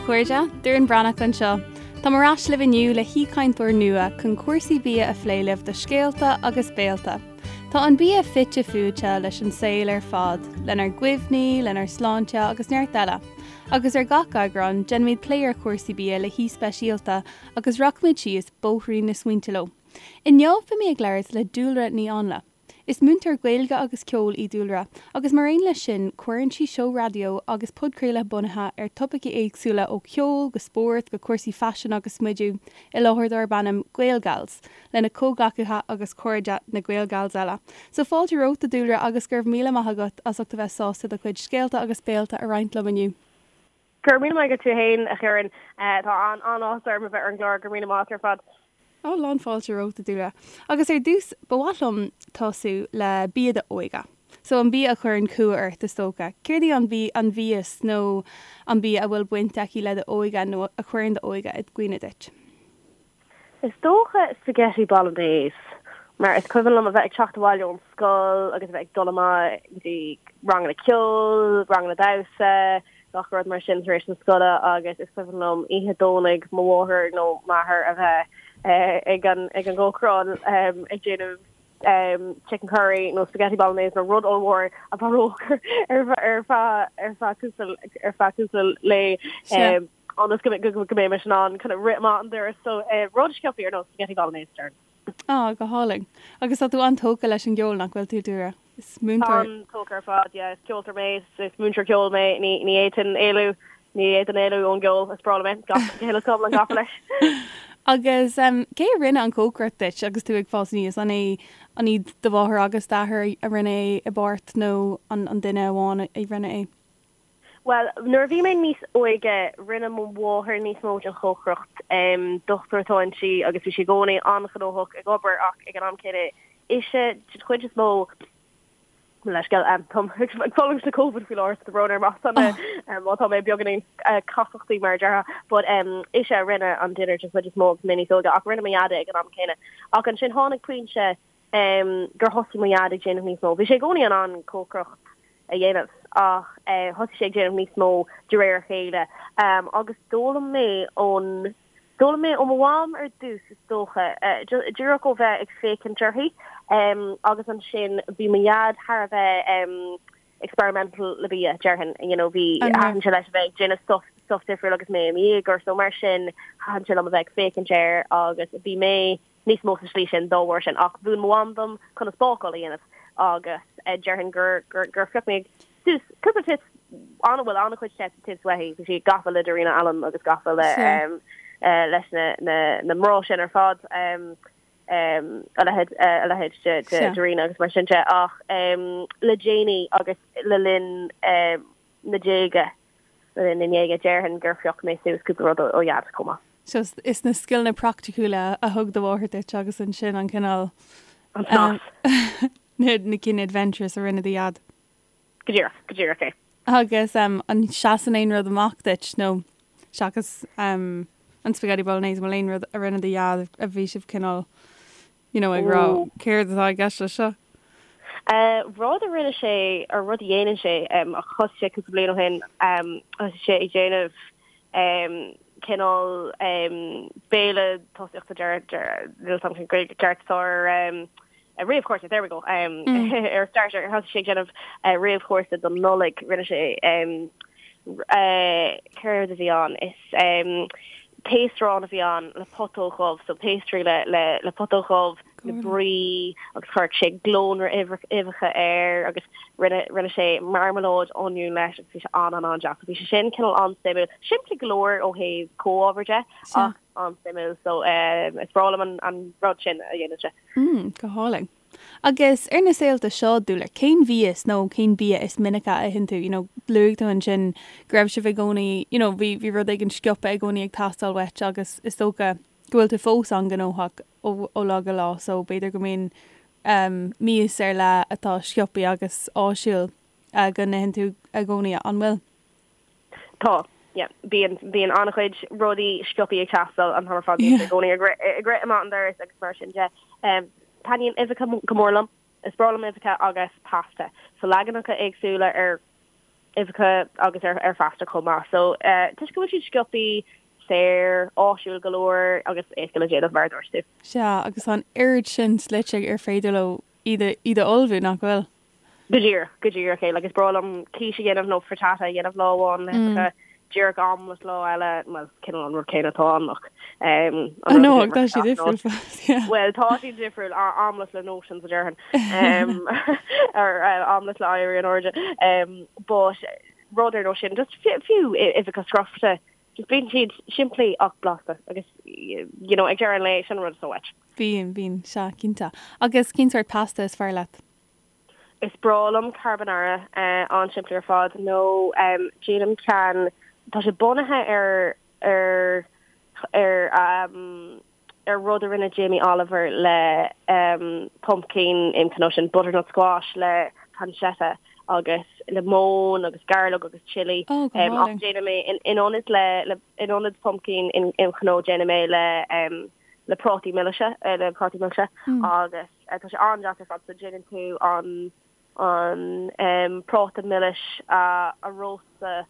chairde, Doireann Breathnach anseo. Táim ar ais libh inniu le haoichainteoir nua chun cúrsaí bia a phlé libh do Scéalta agus Béalta. Tá an bia fite fuaite leis an saol ar fad, lenár gcuimhní, lenár sláinte agus neart eile. Agus ar gach eagrán, déanfaimid plé ar chúrsaí bia le haoi speisialta agus rachaimid síos bóithrín na smaointe leo. Inniu beidh mé ag labhairt le Dúlra Ní Áinle. Is múinteoir Gaeilge agus ceoil í Dúlra, agus mar aon leis sin, cuireann sí seó raidió agus podchraoladh bunaithe ar topaicí éagsúla ó cheol go spórt go cúrsaí faisin agus smidiú i láthair darb ainm GaelGals lena comhghleacaithe agus cairde, na GaelGals eile. So fáilte romhat, a Dúlra, agus go raibh míle maith agat as ucht a bheith sásta do chuid scéalta agus béalta a roinnt liom inniu. Go raibh míle maith agat tú fhéin, a Dhoireann. Tá an-áthas orm a bheith ar an gclár. Go raibh míle maith agat ar fad. Ó, lán fáilte romhat, a Dúlra. Agus ar dtús, ba mhaith liom tosú le bia d'óige. So, an bia a chuireann cumha ort, is dócha. Céard í an bhí, an mhias nó an bia a bhfuil baint aici le d'óige nó a chuireann d'óige i gcuimhne duit? Is dócha spaghetti bolognese, mar is cuimhin liom a bheith ag teacht abhaile ón scoil agus a bheith ag dul amach go dtí ranganna ceoil, ranganna damhsa, gach rud mar sin tar éis na scoile agus is cuimhin liom oíche Domhnaigh mo mháthair nó m'athair a bheith ag an ag an gcócaireán ag déanamh chicken curry nó spaghetti bolognese nó rud ollmhór a mhairfeadh ar ar feadh ar feadh cúpla ar feadh cúpla lae. ionas go go mbeimis in ann kind of rith amach an doras so rud sciobtha ar nós spaghetti bolognese déarfainn. Á, go hálainn. Agus tá tú an-tógtha leis an gceol, nach bhfuil tú, Dúlra? Is múinteoir. An-tógtha ar fad, yeah. Is ceoltóir mé, is múinteoir ceoil mé, ní ní fhéadfainn éalú, ní fhéadfainn éalú ón gceol, is breá liom é, gach go huile is go hiomlán gafa leis. Agus cé a rinne an chócaireacht duit agus tú ag fás aníos? An é an iad do mháthair agus d'athair a rinne é i bpáirt nó an an duine amháin a rinne é? Bhuel, nuair a bhí mé níos óige, rinne mo mháthair níos mó den chócaireacht. Dochtúir atá inti agus bhí sí i gcónaí an-ghnóthach ag obair ach ag an am céanna, ise den chuid is mó, mo leithscéal, táim ag fulaingt le Covid faoi láthair so tá brón orm má tá mé, má tá mé beagáinín casachtaí mar a déarfá, but ise a rinne an dinnéar den chuid is mó agus mé níos óige ach rinne mo dhaid é ag an am céanna. Ach ansin tháinig pointe gur thosaigh mo dhaid ag déanamh níos mó. Bhí sé i gcónaí in ann cócaireacht a dhéanamh ach thosaigh sé ag déanamh níos mó de réir a chéile agus d'fhoghlaim mé ón, d'fhoghlaim mé ó mo mham ar dtús is dócha, díreach ó bheith ag féachaint uirthi agus ansin bhí mo dhaid thar a bheith experimental le bia, déarfainn, you know, bhí, thaitin sé leis a bheith ag déanamh stuff, stuff difriúil agus mé i mo dhéagóir so mar sin thaitin sé liom a bheith ag féachaint air agus bhí mé níos mó sa slí sin dá bharr sin ach mhúin mo mham dom conas bácáil a dhéanamh agus déarfainn gur gur gur phioc mé suas cúpla tips an bhuel an-chuid tips uaithi bhí sí gafa le Darina Allen agus gafa le leis na na na mná sin ar fad a leithéid a leithéid de de Darina agus mar sin de ach le déanaí agus le linn na déaga Le linn na ndéaga, déarfainn gur phioc mé suas cúpla rud ó Dhaid chomh maith. So is na scileanna praiticiúla a thug do mháthair duit agus ansin an cineál. An snas. Na cinn adventurous a rinne do Dhaid. Go díreach, go díreach é. Agus an seasann aon rud amach duit nó seachas an spaghetti bolognese, an bhfuil aon rud a rinne do Dhaid a bhí sibh cineál you know, ag rá céard atá i gceist leis seo? Rud a rinne sé, or rud a dhéanann sé, ach thosaigh sé cúpla bliain ó shin, thosaigh sé ag déanamh cineál béile tosaíochta, deir, deir, níl a fhios agam cén Gaeilge ceart atá ar réamhchúrsa, there we go, ar starter, thosaigh sé ag déanamh réamhchúrsa don Nollaig, rinne sé, céard a bhí ann, is taos-arán a bhí ann le putóg dhubh, so pastry le le le putóg dhubh, le brie agus chuir sé glónra uibheacha air agus rinne rinne sé marmalade oinniún leis agus bhí sé an an an-deas. Bhí sé sin cineál an-suimiúil. Simplí go leor ó thaobh comhábhar de ach an-suimiúil so is breá liom an an rud sin a dhéanann sé. Mm, go hálainn. Agus ar na saolta seo, Dúlra, cén mhias nó cén bia is minice a itheann tú? You know, luaigh tú ansin go raibh sibh i gcónaí, you know, bhí, bhí rud éigin sciobtha i gcónaí ag teastáil uait agus is dócha go bhfuil tú fós an-ghnóthach ó, ó lá go lá so b'fhéidir go mbíonn um, mias ar leith atá sciobtha agus áisiúil uh, go n-itheann tú i gcónaí, an bhfuil? Tá, yeah. Bíonn, bíonn an-chuid rudaí sciobtha ag teastáil an t-am ar fad. Bíonn i gcónaí ag rith, ag rith amach an doras agus mar sin de. Um, taitníonn uibheacha go mór liom. Is breá liom uibheacha agus pasta. So leaganacha éagsúla ar Uibheacha agus ar ar phasta chomh maith. So toisc go bhfuil siad sciobthaí, saor, áisiúil go leor agus éasca le déanamh mar a dúirt tú. Sea, agus tá an oiread sin slite ar féidir leo iad a iad a ullmhú, nach bhfuil? Go díreach, go díreach é. Like is breá liom quiche a dhéanamh nó frittata a dhéanamh lá amháin le huibheacha, díreach omelette lá eile, bhuel, cineál an rud céanna atá ann ach um, an rud a ach tá siad difriúil fós, yeah. Bhuel, tá siad difriúil, omelette le notions a déarfainn. Um, ar uh, omelette le éirí in airde. Um, but rud ar nós sin, just fiú uibheacha scrofa, just bíonn siad simplí ach blasta agus you know, ag deireadh an lae sin an rud is mó uait. Bíonn, bíonn, sea, cinnte. Agus cén sórt pasta is fearr leat? Is breá liom carbonara, an-simplí ar fad, nó déanaim ceann, tá sé bunaithe ar ar ar ar rud a rinne Jamie Oliver le pumpkin im cnó sin butternut squash le pancetta agus le móin agus gairleog agus chilli. Oh, go hálainn. Ach déanaim é in ionad le in ionad pumpkin im chnó déanaim é le le prátaí milse le prátaí milse agus Tá sé an-deas ar fad so déanann tú an an práta milis a róstadh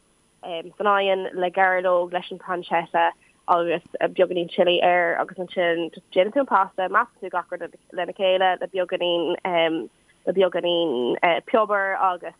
san oigheann le gairleog leis an pancetta agus beagáinín chilli air agus ansin just déanann tú an pasta, meascann tú gach rud lena chéile le beagáinín le beagáinín piobar agus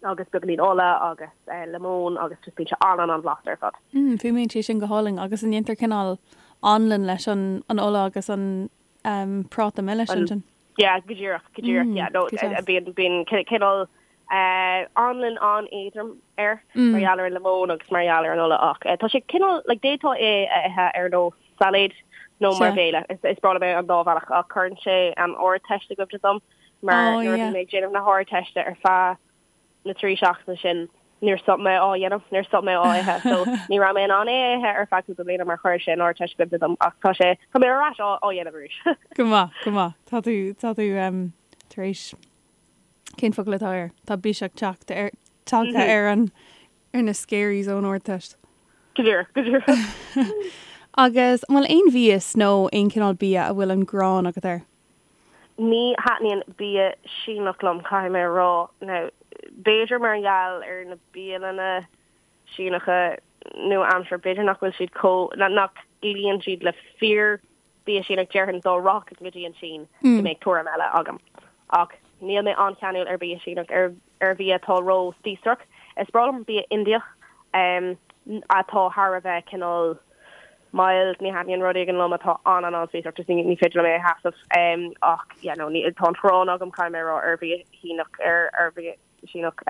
agus beagáinín ola agus lemon agus just bíonn sé an-an-an-bhlasta ar fad. Mm, fuaimníonn sé sin go hálainn agus an ndéantar cineál anlann leis an an ola agus an um, práta milis ansin? Yeah, go díreach, go díreach, mm, yeah, no, bíonn bíonn cineál uh, anlann an-éadrom air mm. mar gheall ar an lemon agus mar gheall ar an ola ach uh, tá sé cineál like, d'fhéadfá é a ithe ar nós sailéid nó mar bhéile. Is, is breá liom é an dá bhealach ach cuireann sé an Ardteist i gcuimhne dom. mar oh, nuair a bhí mé ag déanamh na hArdteiste ar feadh na 3 seachtaine sin níor stop mé á dhéanamh, níor stop mé á ithe, so ní raibh mé in ann é a ithe ar feadh cúpla bliana mar chuir sé an Ardteist i gcuimhne dom ach tá sé, tá mé ar ais á dhéanamh arís. Go maith, go maith. Tá tú, tá tú um, tar éis, cén focal atá air? Tá biseach teacht ar, tagtha ar an, ar na scaries ón Ardteist. Go díreach, go díreach. Agus an bhfuil aon mhias nó aon cineál bia a bhfuil an ghráin agat air? Ní thaitníonn bia Síneach liom, caithfidh mé a rá. Now, b'fhéidir mar gheall ar na bialanna Síneacha nua-aimseartha, b'fhéidir nach bhfuil siad chomh, nach gcloíonn siad le fíor bia Síneach, déarfainn dá rachainn go dtí an tSín go mbeadh tuairim eile agam. Ach níl mé an-cheanúil ar bhia Síneach, ar ar bhia atá ró-spíosrach. Is breá liom bia Indiach atá thar a bheith cineál mild, ní thaitníonn rud éigin liom atá an-an-an-spíosrach, just ní féidir liom é a sheasamh. Ach yeah no, ní, tá an ghráin agam, caithfidh mé a rá, ar bhia Shíneach, ar ar bhia Síneach.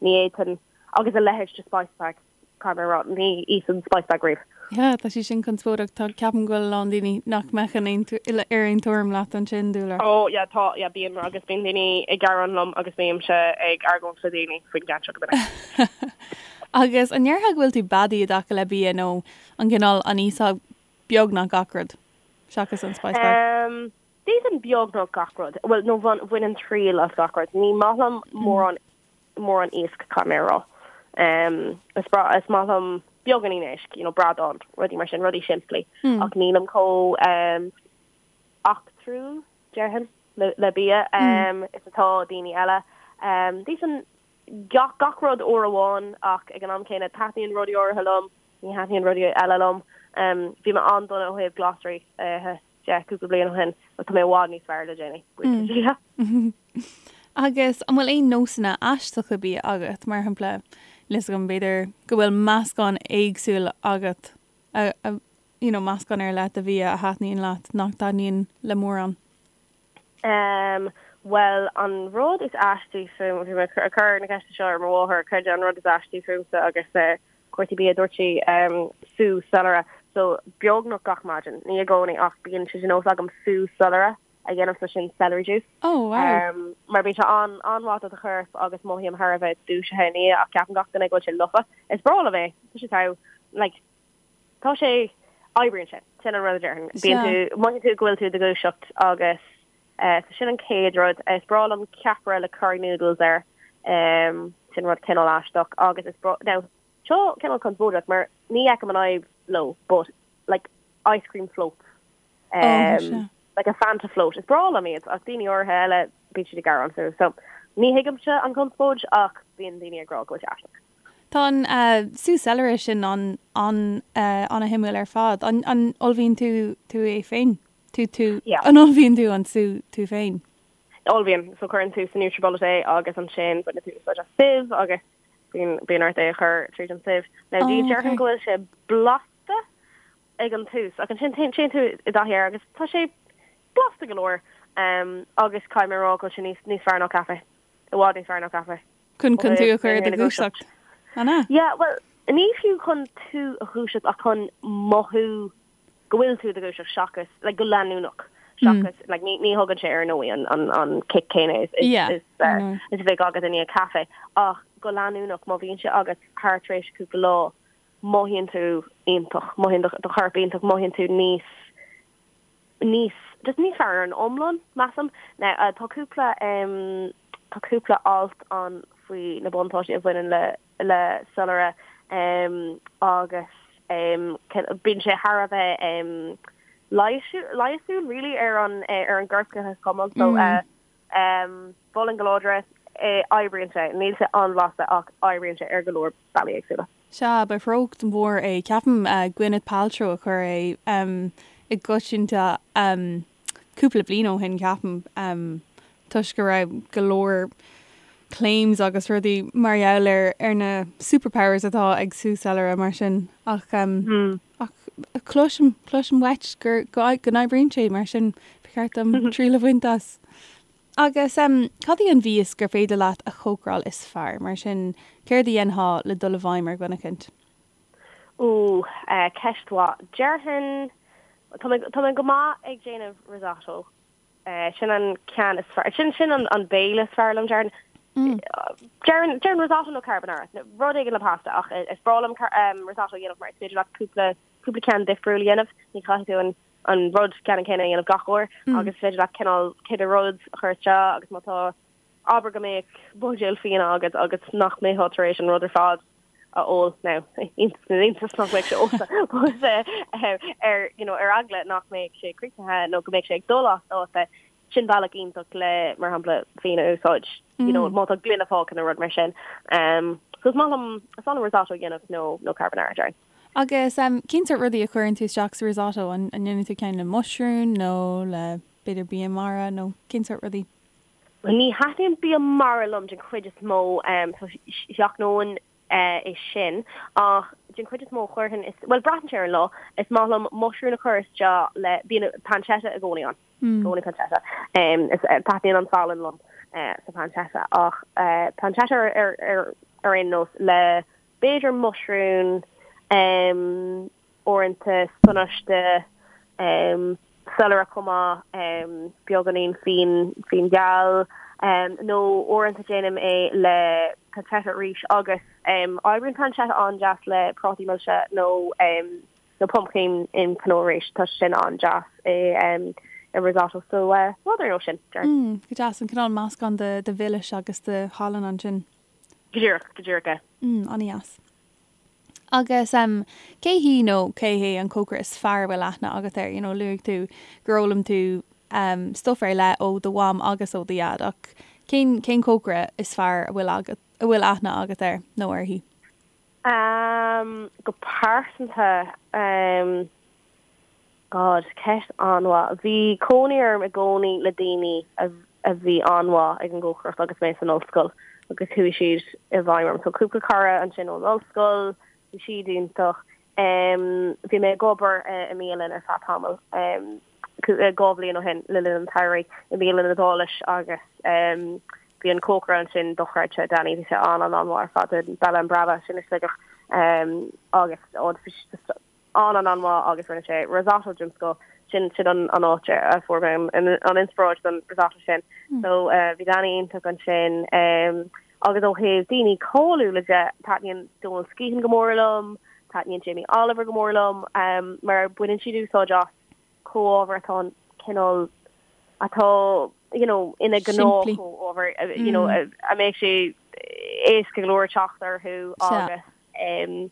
Ní fhéadfainn, agus a leithéid de spice bag. Caithfidh mé a rá, ní íosfainn spice bag riamh. Yeah, tá sé sin conspóideach. Tá, ceapaim go bhfuil a lán daoine nach mbeadh in aon, ar aon tuairim leat ansin, Dúlra. Oh yeah, tá, yeah, bíonn, agus bíonn daoine ag gearán liom agus bímse ag argóint le daoine faoin gceann seo go minic. Agus an ndéarfá go bhfuil tú beadaí i dtaca le bia nó an cineál an íosfá beagnach gach rud, seachas an spice bag? Um, d'íosfainn beagnach gach rud. Bhuel, nó bhainfinn triail as gach rud. Ní maith liom mórán mórán iasc, caithfidh mé a rá. Is breá, is maith liom beagáinín éisc, you know, bradán, rudaí mar sin, rudaí simplí. Ach nílim chomh eachtrúil, déarfainn, le, le bia is atá daoine eile. D'íosfainn gach, gach rud uair amháin ach ag an am céanna taitníonn rudaí áirithe liom, ní thaitníonn rudaí eile liom. Bhí mé an-dona ó thaobh glasraí a ithe. de cúpla bliain ó shin ach tá mé i bhfad níos fearr le déanaí, buíochas le Dia. Agus an bhfuil aon nósanna aisteacha bia agat, mar shampla, níl 'fhios agam, b'fhéidir go bhfuil meascán éagsúil agat, a, a, you know, meascán ar leith de bhia a thaitníonn leat nach dtaitníonn le mórán? Em, bhuel, an rud is aistí fúm, bhí mé ag cur na ceiste seo ar mo mháthair, cad é an rud is aistí fúmsa agus eh, cúrsaí bia, dúirt sí, sú soilire. So, beagnach gach maidin, ní i gcónaí ach bíonn sé de nós agam sú soilire a dhéanamh, so sin celery juice. Oh, wow. Mar bíonn sé an-mhaith do do chorp agus mothaím thar a bheith dúisithe ina dhiaidh ach ceapann gach duine go bhfuil sé lofa. Is breá liom é. Tá sé togha. Like, tá sé, oibríonn sé. Sin an rud a déarfainn. Bíonn tú, mothaíonn tú go bhfuil tú i do dhúiseacht agus So sin an chéad rud. Is breá liom ceapaire le curry noodles air. Sin rud cineál aisteach agus is breá, now seo cineál conspóideach mar ní fheicim an fhadhb leo but like ice cream floats. Oh, sea. Like a Fanta float. Is breá liom iad ach daoine áirithe eile bíonn siad ag gearán fúthu. So. Ní thuigimse an chonspóid ach bíonn daoine ag rá go bhfuil sé aisteach. Tá an sú soilire sin an-shuimiúil ar fad. An ullmhaíonn tú tú é féin? Tú tú An ullmhaíonn tú an sú tú féin? Ullmhaím. So cuireann tú sa Nutribullet é agus ansin baineann tú úsáid as sieve agus bíonn bíonn ort é a chur tríd an sieve. Now oh, déarfainn go bhfuil sé blasta ag an tús ach ansin téann tú i dtaithí air agus tá sé blasta go leor um, agus caithfidh mé a rá go bhfuil sé níos níos fearr ná caife. I bhfad níos fearr ná caife. Chun chun tú a chur i do dhúiseacht. An ea? Yeah, well, ní fiú chun tú a dhúiseacht ach chun mothú go bhfuil tú i do dhúiseacht seachas, like, go leanúnach seachas, like, ní, ní thugann sé ar ndóigh an, an, an kick céanna is, is, Yeah, is, ar uh, ndóigh. is a bheadh agat i ndiaidh caife ach go leanúnach má bhíonn sé agat thar tréimhse cúpla lá mothaíonn tú iontach, mothaíonn do, do chorp iontach, mothaíonn tú níos níos, just níos fearr ar an iomlán, measaim. Now, uh, tá cúpla, um, tá cúpla alt ann faoi na buntáistí a bhaineann le, le soilire, um, agus, um, bíonn sé thar a bheith, um, leigheasúil, really, ar an, eh, ar an gcorp go hiomlán. So, uh, um, mholfainn go láidir é, eh, oibríonn sé, níl sé an-bhlasta ach oibríonn sé ar go leor bealaí éagsúla. Sea, ba threocht mhór é. Ceapaim Gwyneth Paltrow a chuir é i gcoitianta cúpla bliain ó shin, ceapaim, toisc go raibh go leor claims agus rudaí mar gheall ar ar na superpowers atá ag sú soilire mar sin. Ach ach cloisim, cloisim uait gur go n-oibríonn sé mar sin ba cheart dom triail a bhaint as. Agus cad í an mhias gur féidir leat a chócaráil is fearr? Mar sin, céard a dhéanfá le dul i bhfeidhm ar dhuine eicint? Ooh, ceist mhaith. Déarfainn, tá mé, tá mé go maith ag déanamh risotto. Sin an ceann is fearr, sin, sin an, an béile is fearr liom, déarfainn. Déarfainn, déarfainn risotto nó carbonara, rud éigin le pasta ach is breá liom risotto a dhéanamh mar is féidir leat cúpla, cúpla ceann difriúil a dhéanamh. Ní chaithfidh tú an an rud ceannann céanna a dhéanamh gach uair agus is féidir leat cineál cibé rud a chur isteach agus má tá, abair go mbeadh buidéal fíona agat agus nach mbeifeá tar éis an rud ar fad a ól, now, iontas na n-iontas nach mbeadh sé ólta, but ar, you know, ar eagla nach mbeadh sé críochnaithe nó go mbeadh sé ag dul as dáta, sin bealach iontach le, mar shampla, fíon a úsáid, you know, má tá gloine fágtha nó rud mar sin. So is maith liom, is maith liom risotto a dhéanamh nó, nó carbonara, déarfainn. Agus cén sórt rudaí a chuireann tú isteach sa risotto? An ndéanann tú ceann le muisriúin nó le b'fhéidir bia mara nó cén sórt rudaí? Bhuel, ní thaitníonn bia mara liom den chuid is mó, so sheachnóinn é sin. Ach den chuid is mó chuirfinn, is, bhuel braitheann sé ar an lá, is maith liom muisriúin a chur isteach le, bíonn pancetta i gcónaí ann. I gcónaí pancetta. Is taitníonn an salann liom sa pancetta ach pancetta ar ar ar aon nós le b'fhéidir muisriúin, uaireanta spionáiste, soilire chomh maith, beagáinín fíon, fíon geal, nó uaireanta déanaim é le pancetta arís agus oibríonn pancetta an-deas le prátaí milse nó nó pumpkin in pineau arís, tá sé sin an-deas i i risotto so rud ar nós sin, déarfainn. Go deas, an cineál meascán de de mhilis agus de shalann ansin. Go díreach, go díreach é. Mm, an-dheas. Agus em, cé hí nó cé hé an cócaire is fearr a bhfuil aithne agat air? You know, luaigh tú gur fhoghlaim tú em, stuff ar leith ó do mham agus ó do dhaid ach cén, cén cócaire is fearr a bhfuil agat, a bhfuil aithne agat air nó uirthi? Em, go pearsanta, em, God, ceist an-mhaith. Bhí cónaí orm i gcónaí le daoine a a bhí an-mhaith ag an gcócaireacht agus mé san ollscoil agus chuaigh siad i bhfeidhm orm. So cúpla cara ansin ón ollscoil, bhí siad iontach. Bhí mé ag obair i mbialann ar feadh tamaill, 2 bhliain ó shin le linn an tsamhraidh i mbialann Iodáilis agus bhí an cócaire ansin dochreidte, Danny, bhí sé an-an-an-mhaith ar fad, Bella and Brava sin i Sligeach agus an-an-an-mhaith agus rinne sé risotto den scoth. Sin sin an an áit a fuair mé an an inspioráid don risotto sin. So bhí Danny iontach ansin. Agus ó thaobh daoine cáiliúla de, taitníonn Donal Skehan go mór liom, taitníonn Jamie Oliver go mór liom, mar baineann siad úsáid as comhábhair atá an cineál atá you know ina Simplí. gnáth-chomhábhair, you know a mbeadh sé éasca go leor teacht orthu agus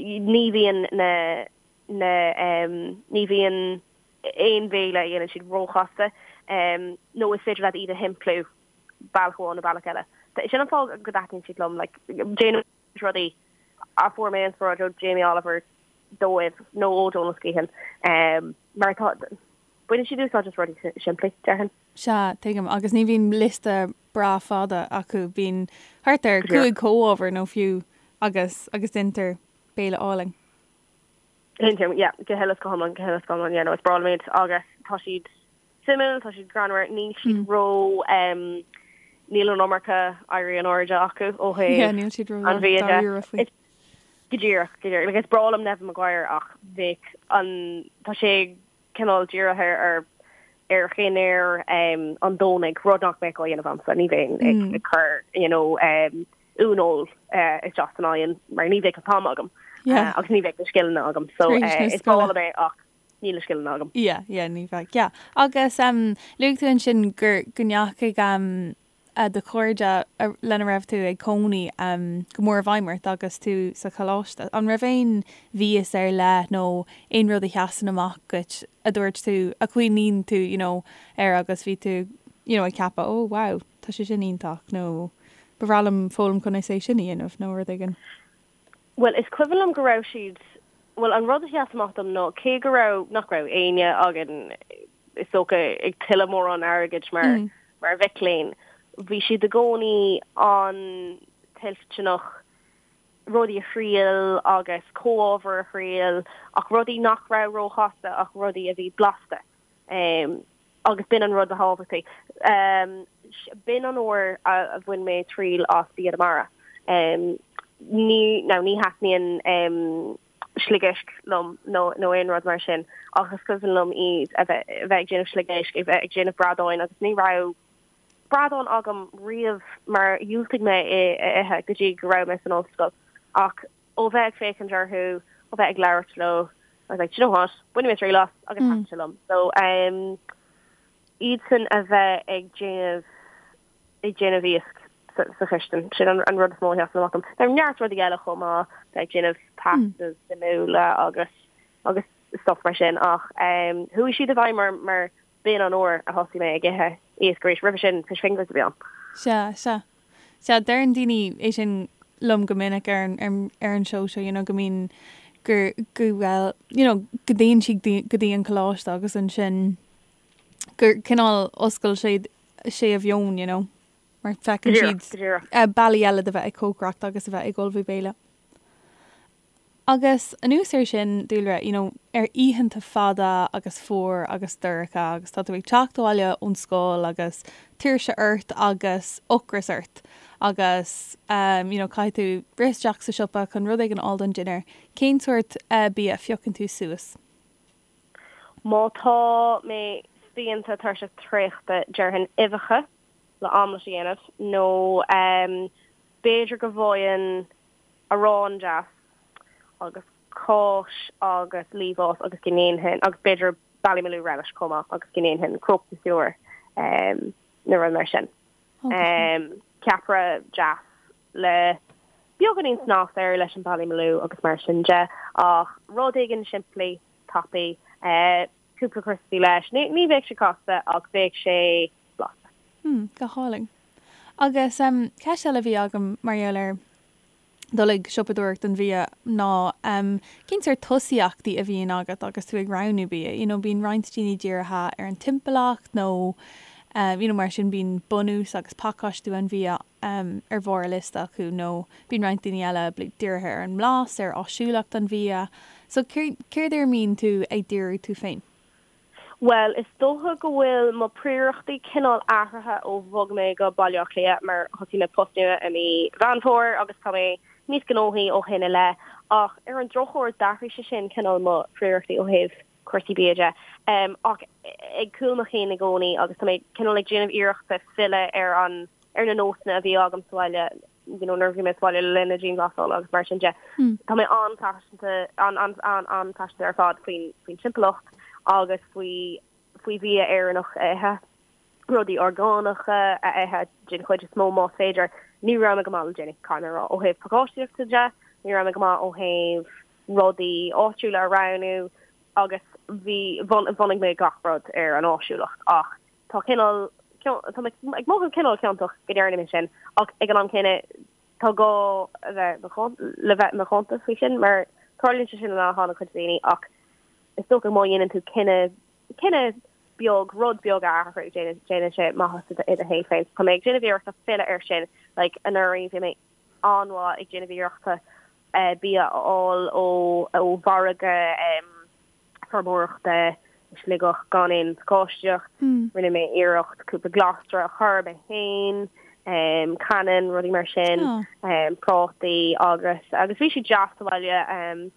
ní bhíonn na na ní bhíonn aon bhéile a dhéanann siad róchasta nó is féidir leat iad a shimpliú. bealach amháin nó bealach eile. Sin an fáth go dtaitníonn siad liom, like, déanaim rudaí a fuair mé inspioráid ó Jamie Oliver dóibh nó ó Donal Skehan, mar tá, baineann siad úsáid as rudaí simplí, déarfainn. Sea, tuigim. Agus ní bhíonn liosta breá fada acu, bíonn thart ar 5 comhábhar nó fiú agus agus deintear béile álainn. Deintear, yeah, go huile is go hiomlán, go huile is go hiomlán, yeah, no, is breá liom iad agus tá siad suimiúil, tá siad greannmhar, níl siad ró, níl an iomarca éirí in airde acu ó thaobh Yeah, níl siad ró an bhia de. dáiríre faoi. Go díreach, go díreach. Like, is breá liom Neven Maguire ach bheadh an, tá sé cineál dírithe ar ar dhinnéar an Domhnaigh, rud nach mbeadh á dhéanamh agamsa, ní bheinn ag ag cur, you know, uaineoil isteach san oigheann mar ní bheadh an t-am agam agus ní bheadh na scileanna agam. So is breá liom é ach níl na scileanna agam. Yeah, yeah, ní bheadh, yeah. Agus luaigh tú ansin gur go ndeachaigh do chairde lena raibh tú ag cónaí go mór i bhfeidhm ort agus tú sa choláiste. An raibh aon mhias ar leith nó aon rud a sheasann amach duit a dúirt tú, a chuimhníonn tú, you know, air agus bhí tú, you know, ag ceapadh, oh wow, tá sé sin iontach nó ba bhreá liom foghlaim conas é sin a dhéanamh nó rud éigin? Bhuel, is cuimhin liom go raibh siad, bhuel, an rud a sheas amach dom ná cé go raibh, nach raibh éinne againn, is dócha, ag tuilleamh mórán airgid mar, mar mhic léinn, bhí siad i gcónaí an-toilteanach rudaí a thriail agus comhábhair a thriail ach rudaí nach raibh róchasta ach rudaí a bhí blasta. Agus b'in an rud ba thábhachtaí. B'in an uair a bhain mé triail as bia na mara. Ní, now ní thaitníonn sliogéisc liom nó nó aon rud mar sin ach is cuimhin liom iad a bheith a bheith ag déanamh sliogéisc, a bheith ag déanamh bradáin agus ní raibh bradán agam riamh mar dhiúltaigh mé é a ithe go dtí go raibh mé san ollscoil ach ó bheith ag féachaint orthu, ó bheith ag labhairt leo, I was like, do you know what, bainfidh mé triail as agus thaitin sé liom. So um, iadsan a bheith ag déanamh ag déanamh iasc sa, sa chistin, sin an, an rud is mó a sheasann amach dom. Tá neart rudaí eile chomh maith, bheith ag déanamh pastas suimiúla agus agus stuff mar sin ach um, chuaigh siad i bhfeidhm mar, mar b'in an uair a thosaigh mé ag ithe iasc arís. Roimhe sin, fish fingers a bhí ann. Sea, sea. Sea, deireann daoine é sin liom go minic ar an, ar an seó seo, you know, go mbíonn, gur, go bhfuil, you know, go dtéann siad go dtí an coláiste agus ansin gur cineál oscail sé, sé a mheon, you know, mar feiceann siad bealaí eile de bheith ag cócaireacht agus a bheith ag ullmhú béile. Agus anuas air sin, Dúlra, you know, ar oícheanta fada agus fuar agus dorcha agus tá tú ag teacht abhaile ón scoil agus tuirse ort agus ocras ort agus um, you know, caithfidh tú rith isteach sa siopa chun rud éigin a fháil don dinnéar, cén sórt eh, bia a phiocann tú suas? Má tá mé spíonta tuirseach traochta, déarfainn uibheacha le aimléit a dhéanamh nó um, b'fhéidir go bhfaighinn arán deas agus cáis agus liamhás agus go ndéanfainn, agus b'fhéidir Ballymaloe relish chomh maith agus go ndéanfainn croque monsieur nó rud mar sin. Ceapaire deas le beagáinín snas air leis an Ballymaloe agus mar sin de ach rud éigin simplí, tapaidh, cúpla criospaí leis. Ní bheadh sé casta ach bheadh sé blasta. Hmm, go hálainn. Agus ceist eile a bhí agam mar gheall ar dul ag siopadóireacht don bhia ná cén sórt tosaíochtaí a bhíonn agat agus tú ag roghnú bia? You know, bíonn roinnt daoine dírithe ar an timpeallacht nó you know, mar sin bíonn bunús agus pacáistiú an bhia ar bharr a liosta acu nó bíonn roinnt daoine eile dírithe ar an mblas, ar áisiúlacht an bhia. So céard ar a mbíonn tú ag díriú tú féin? Bhuel, is dócha go bhfuil mo phríorachtaí cineál athraithe ó bhog mé go Baile Átha Cliath mar thosaigh mé post nua i mí Mheán Fómhair agus tá mé níos gnóthaí ó shin i leith. Ach ar an drochuair d'athraigh sé sin cineál mo phríorachtaí ó thaobh cúrsaí bia de. Ach ag cúl mo chinn i gcónaí agus tá mé cineál ag déanamh iarrachta filleadh ar an ar na nósanna a bhí agam sa bhaile you know, nuair a bhí mé sa bhaile le linn na dianghlasála agus mar sin de. Tá mé an-phaiseanta, an-an-an-an-phaiseanta ar fad faoin faoin timpeallacht agus faoi faoi bhia Éireannach a ithe, rudaí orgánacha a ithe den chuid is mó más féidir. Ní raibh mé go maith le déanaí, caithfidh mé a rá, ó thaobh pacáistíochta de, ní raibh mé go maith ó thaobh rudaí áitiúla a roghnú agus bhí, bhunaigh mé gach rud ar an áisiúlacht ach tá cineál. Tá mé ag mothú cineál ciontach go ndearna mé sin ach ag an am céanna tá gá a bheith le bheith macánta faoi sin mar tarlaíonn sé sin le han-chuid daoine ach is dócha má dhéanann tú cinneadh cinneadh beag rud beag a athrú déanann sé maitheas i do shaol féin. Tá mé ag déanamh iarrachta filleadh air sin like anuraidh bhí mé an-mhaith ag déanamh iarrachta bia a fháil ó ó mhargadh feirmeoireachta i Sligeach gan aon phacáistíocht. Rinne mé iarracht cúpla glasra a chur mé féin, cannan, rudaí mar sin, prátaí agus agus bhí siad deas sa bhaile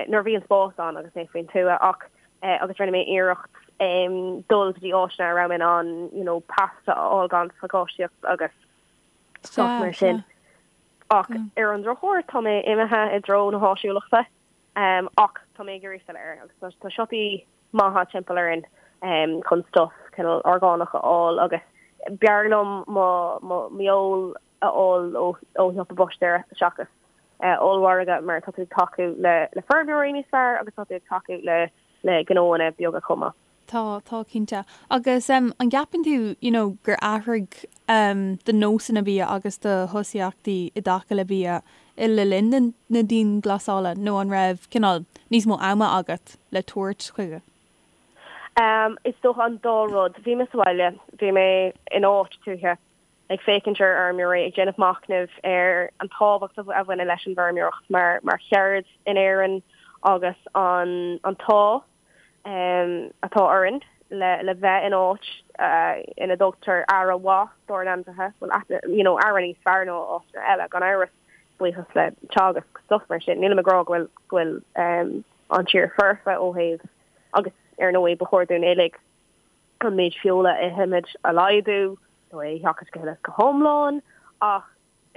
nuair a bhí an spás ann agus mé faoin tuath ach agus rinne mé iarracht dul go dtí áiteanna a raibh mé in ann you know pasta a fháil gan phacáistíocht agus stuff mar sin. Ach ar an drochuair tá mé imithe i dtreo na háisiúlachta. Ach tá mé ag iarraidh filleadh air agus tá siopaí maithe timpeall orainn chun stuff cineál orgánach a fháil agus b'fhearr liom mo m'fheoil a fháil ó shiopa búistéara seachas ollmhargadh mar tá tú ag tacú le le feirmeoirí níos fearr agus tá tú ag tacú le le gnóanna beaga chomh maith. Tá, tá cinnte. Agus an gceapann tú, you know, gur athraigh do nósanna bia agus do thosaíochtaí i dtaca le bia le linn na dianghlasála nó an raibh cineál níos mó ama agat le tabhairt chuige? Is dócha an dá rud. Bhí mé sa bhaile, bhí mé in áit tuaithe ag féachaint ar fheirmeoirí, ag déanamh machnaimh ar an tábhacht a bhaineann leis an bhfeirmeoireacht mar cheird in Éirinn agus an t-ádh atá orainn le bheith in áit ina dtugtar aire mhaith dár n-ainmhithe, bhuel, you know, aire níos fearr ná áiteanna eile, gan amhras, buíochas le Teagasc, stuff mar sin. Nílim ag rá go bhfuil, go bhfuil an tír foirfe ó thaobh, agus ar ndóigh ba chóir dúinn uilig an méid feola a ithimid a laghdú, nó é a sheachaint go huile is go hiomlán, ach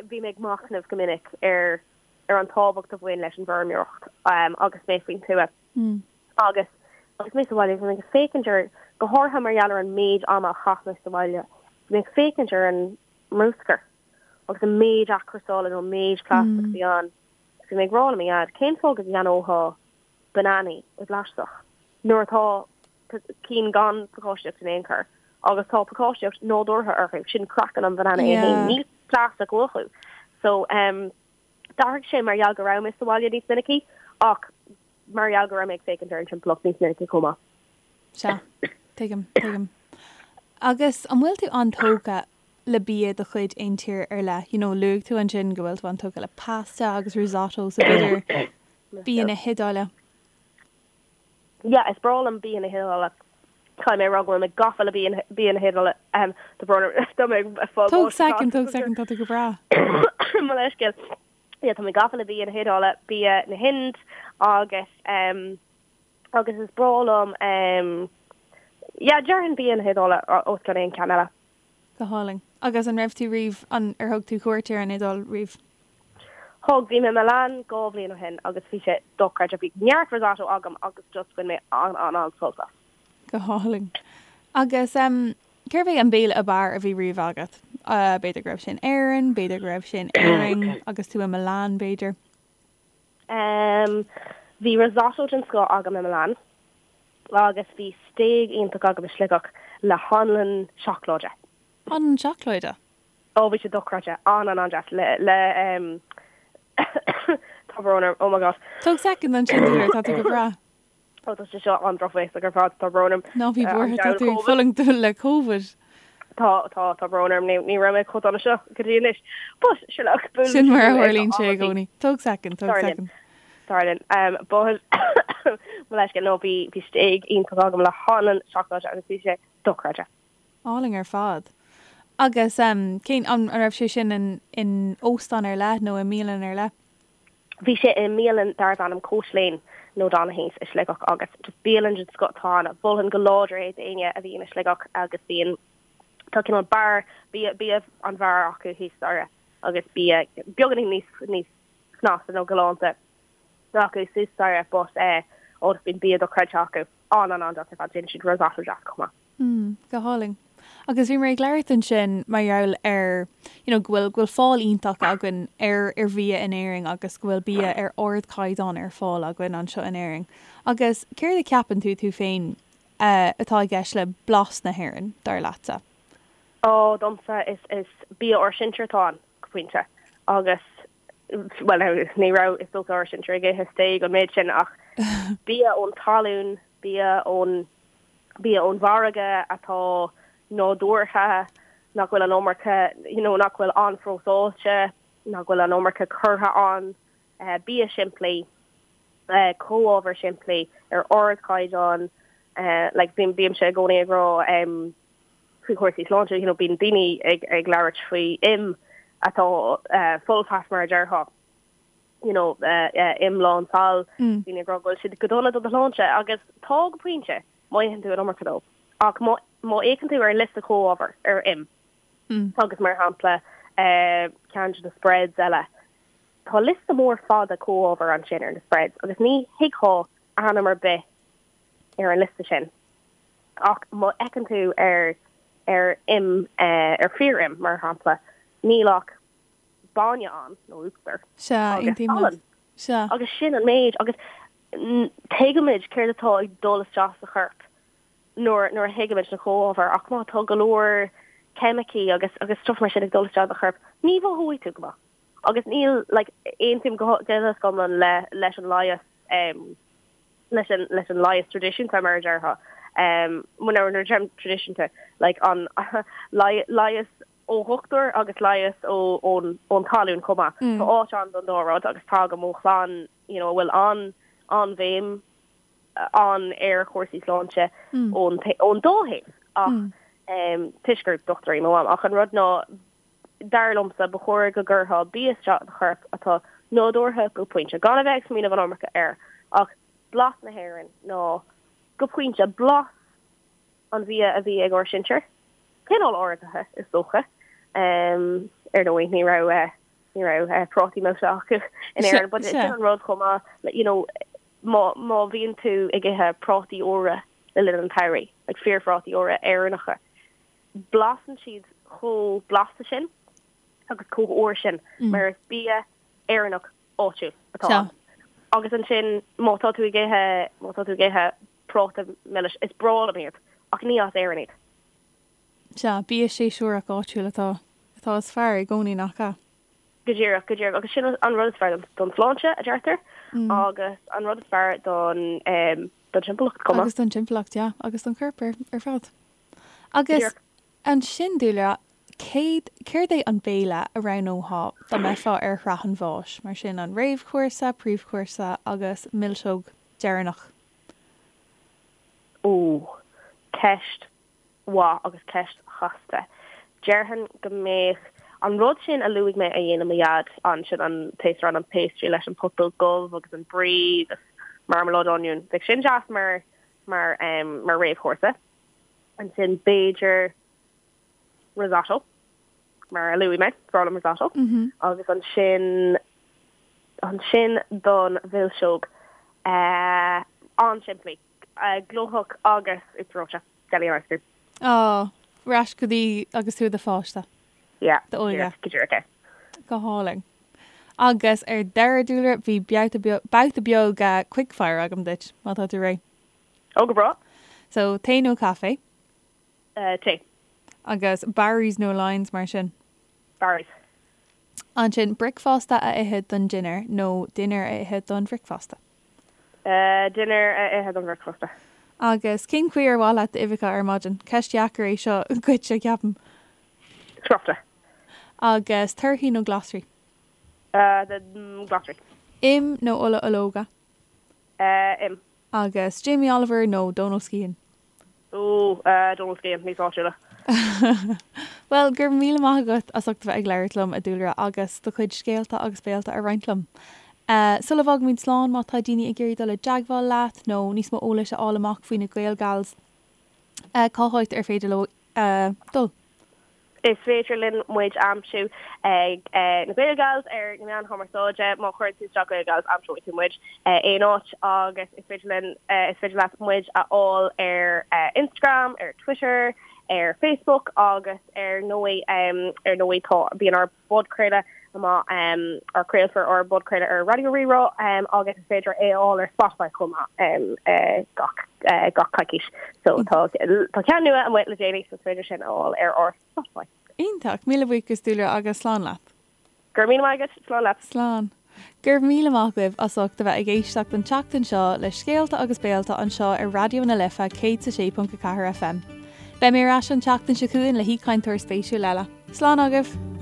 bhí mé ag machnamh go minic ar ar an tábhacht a bhain leis an bhfeirmeoireacht agus mé faoin tuath. Agus agus mé sa bhaile, bhí mé ag féachaint ar, go háirithe mar gheall ar an méid ama a chaith mé sa bhaile, bhí mé ag féachaint ar an mbruscar agus an méid athchúrsála nó an méid plaisteach a bhí ann. Bhí mé ag rá le mo dhaid, cén fáth go gceannófá bananaí i bplaisteach nuair atá cinn gan pacáistíocht in aon chor agus tá pacáistíocht nádúrtha orthu, sin craiceann an bhanana é féin, níl plaisteach uathu. So um, d'athraigh sé mar gheall go raibh mé sa bhaile níos minicí ach mar gheall go raibh mé ag féachaint ar an timpeallacht níos minicí chomh maith. Sea, tuigim, tuigim. Agus an bhfuil tú an-tógtha le bia de chuid aon tír ar leith? You know, luaigh tú ansin go bhfuil tú an-tógtha le pasta agus risotto, so b'fhéidir bia na hIodáile. Yeah, is breá liom bia na hIodáile. Caithfidh mé a rá go bhfuil mé gafa le bia bia na hIodáile. Ahem, tá brón orm, tá mé ag fáil Tóg báis second, tóg second, tá tú go breá. Mo leithscéal. Yeah, tá mé gafa le bia na hIodáile, bia na hInde agus um, agus is breá liom um, yeah, déarfainn bia na hIodáile os cionn aon cheann eile. Go hálainn. Agus an raibh tú riamh, an, ar thug tú cuairt ar an Iodáil riamh? Thug, bhí mé i Milan 2 bhliain ó shin agus bhí sé dochreidte. Bhí neart risotto agam agus just bhain mé an-an-an-sult as. Go hálainn. Agus em, cérbh é an béile ab fhearr a bhí riamh agat? B'fhéidir go raibh sé in Éirinn, b'fhéidir go raibh sé in Éirinn agus tú i Milan, b'fhéidir. Em, bhí risotto den scoth agam i Milan agus bhí stéig iontach agam i Sligeach le hanlann seacláide. Anlann seacláide? Ó, bhí sé dochreidte. An-an-an-deas. Le, le, em, tá brón orm, oh my God. Tóg soicind ansin, dear, tá tú go breá. Ó tá sé seo an-drochbhéasach ar fad, tá brón orm. Ná bí buartha, tá tú ag fulaingt le Covid. Tá, tá, tá brón orm, ní raibh mé chomh dona seo go dtí anois. But, sure look, buaileann Sin mar a tharlaíonn sé i gcónaí. Tóg soicind, tóg soicind. Tarlaíonn. Um, but, mo leithscéal, no, bhí, bhí stéig iontach agam le hanlann seacláide agus bhí sé dochreidte. Álainn ar fad. Agus, um, cén, an, an raibh sé sin in, in óstán ar leith nó i mbialann ar leith? Bhí sé i mbialann darbh ainm Coach Lane nó Donaghy's i Sligeach agus just bialann den scoth atá ann. Mholfainn go láidir é d'éinne a bhíonn i Sligeach agus bíonn, tá cineál beár, bia, bia an bheáir acu thíos staighre agus bia beagáinín níos, níos snasta nó galánta acu suas staighre but eh, ó bíonn bia dochreidte acu. An-an-an-deas ar fad, déanann siad risotto deas chomh maith. Mm, go hálainn. Agus bhíomar ag labhairt ansin mar gheall ar, you know, go bhfuil, go bhfuil fáil iontach againn ar, ar bhia in Éirinn agus go bhfuil bia ar ardchaighdeán ar fáil againn anseo in Éirinn. Agus céard a cheapann tú, tú féin, eh, atá i gceist le blas na hÉireann, dar leatsa? Ó, domsa is is bia ár sinsear atá ann, go pointe. Agus, bhuel, now, ní raibh, is dócha, ár sinsear ag ithe stéig an méid sin ach bia ón talún, bia ón, bia ón bhfarraige atá nádúrtha, nach bhfuil an iomarca, you know, nach bhfuil an-phróiseáilte, nach bhfuil an iomarca curtha ann, bia simplí, comhábhair simplí ar ardchaighdeán, like bím, bímse i gcónaí ag rá, faoi chúrsaí sláinte, you know, bíonn daoine ag, ag labhairt faoi im atá full fat mar a déarfá, you know, im lán saill, daoine ag rá go bhfuil siad go dona do do shláinte agus tá go pointe má itheann tú an iomarca dóibh. Ach má, má fhéachann tú ar an liosta comhábhar ar im agus mar shampla ceann de na spreads eile, tá liosta mór fada comhábhar ansin ar na spreads agus ní thuigfeá ainm ar bith ar an liosta sin. Ach má fheiceann tú ar ar im, ar fíor-im, mar shampla, níl ach bainne ann, nó uachtar, Sea, agus aontaím leat. salann. Sea. Agus sin an méid. Agus tuigimid céard atá ag dul isteach sa chorp nuair nuair a thuigimid na comhábhair. Ach má tá go leor ceimicí agus agus stuff mar sin ag dul isteach i do chorp, ní mhothóidh tú go maith. Agus níl, like, aontaím go huile is go hiomlán le leis an leigheas, leis an leis an leigheas traidisiúnta mar a déarfá. Nuair a deirim traidisiúnta, like an leigheas ó dhochtúir agus leigheas ó ón ón talún chomh maith. Tá áit ann don dá rud agus tagaim ó chlann you know a bhfuil an an-bhéim ann ar chúrsaí sláinte ón ón dá thaobh ach toisc gur dochtúir í mo mham. Ach an rud ná Dar liomsa, ba chóir go gcuirfeá bia isteach i do chorp atá nádúrtha go pointe, gan a bheith ag smaoineamh an iomarca air, ach blas na hÉireann nó, go pointe, blas an bhia a bhí ag ár sinsear, cineál áirithe, is dócha. Ar ndóigh, ní raibh, ní raibh prátaí milse acu in Éirinn, but sin an rud chomh maith, you know, má, má bhíonn tú ag ithe prátaí úra le linn an tsamhraidh, like fíorphrátaí úra Éireannacha, Blasann siad chomh blasta sin agus chomh úr sin mar is bia Éireannach áitiúil atá ann. Agus ansin má tá tú ag ithe, má tá tú ag ithe práta milis, is breá liom iad ach ní as Éirinn iad. Sea, bia séasúrach áitiúil atá, atá is fearr i gcónaí, nach ea? Go díreach, go díreach. Agus sin an rud is fearr don tsláinte, a deirtear, agus an rud is fearr don, don timpeallacht chomh maith. Agus don timpeallacht, yeah, agus don chorp ar, ar fad. Agus ansin, Dúlra, céad, céard é an béile a roghnófá dá mbeifeá ar shraith an bháis, mar sin an réamhchúrsa, príomhchúrsa agus milseog deireanach? Ó, ceist mhaith agus ceist chasta. Déarfainn go mbeadh an rud sin a luaigh mé a dhéanann mo dhaid ansin, an taosrán, an pastry leis an putóg dhubh agus an brie agus marmaláid oinniúin, bheadh sin deas mar, mar, mar réamhchúrsa. Ansin b'fhéidir risotto, mar a luaigh mé, is breá liom risotto. Agus ansin, ansin don mhilseog, an-simplí, glóthach agus uachtar reoite, jelly and ice cream. Á, ar ais go dtí agus tú i do pháiste. Yeah, D'óige. go díreach é. Go hálainn. Agus ar deireadh, Dúlra, bhí babhta beag quickfire agam duit, má tá tú réidh. Ó, go breá. So, tae nó caife? Tae. Agus Barry's nó Lyons mar sin? Barry's. Ansin, bricfeasta a ithe don dinnéar nó dinnéar a ithe don bhricfeasta? Dinnéar a ithe don bhricfeasta. Agus cén chaoi ar mhaith leat d'uibheacha ar maidin? Ceist dheacair é seo dhuit, ceapaim. Scrioptha. Agus torthaí nó glasraí? Glasraí. Im nó ola ológa? Im. Agus Jamie Oliver nó Donal Skehan? Ó, Donal Skehan, níos áitiúla. Bhuel, go raibh míle maith agat as ucht a bheith ag labhairt liom, a Dúlra, agus do chuid scéalta agus béalta a roinnt liom. Sula bhfágaimid slán, má tá daoine ag iarraidh dul i dteagmháil leat nó níos mó eolais a fháil amach faoi na Gaelgals, cá háit ar féidir leo dul? Is féidir linn muid a aimsiú ag na Gaelgals ar na meáin chumarsáide. Má chuireann tú isteach Gaelgals aimseoidh tú muid aon áit agus is féidir linn, is féidir leat muid a fháil ar Instagram, ar Twitter. Ar Facebook agus ar ndóigh ar ndóigh tá bíonn ár bpodchraoladh amach ár craolfar ár bpodchraoladh ar Raidió Rí-Rá agus is féidir é a fháil ar Spotify chomh maith gach gach coicís. So tá tá ceann nua amuigh le déanaí so is féidir sin a fháil ar ár Spotify. Iontach! Míle buíochas Dúlra agus slán leat. Go raibh míle maith agat, slán leat. Slán. Go raibh míle maith agaibh as ucht a bheith ag éisteacht an tseachtain seo le Scéalta agus Béalta anseo ar Raidió na Life 106.4 FM. Beidh mé ar ais an tseachtain seo chugainn le haoichainteoir spéisiúil eile. Slán agaibh!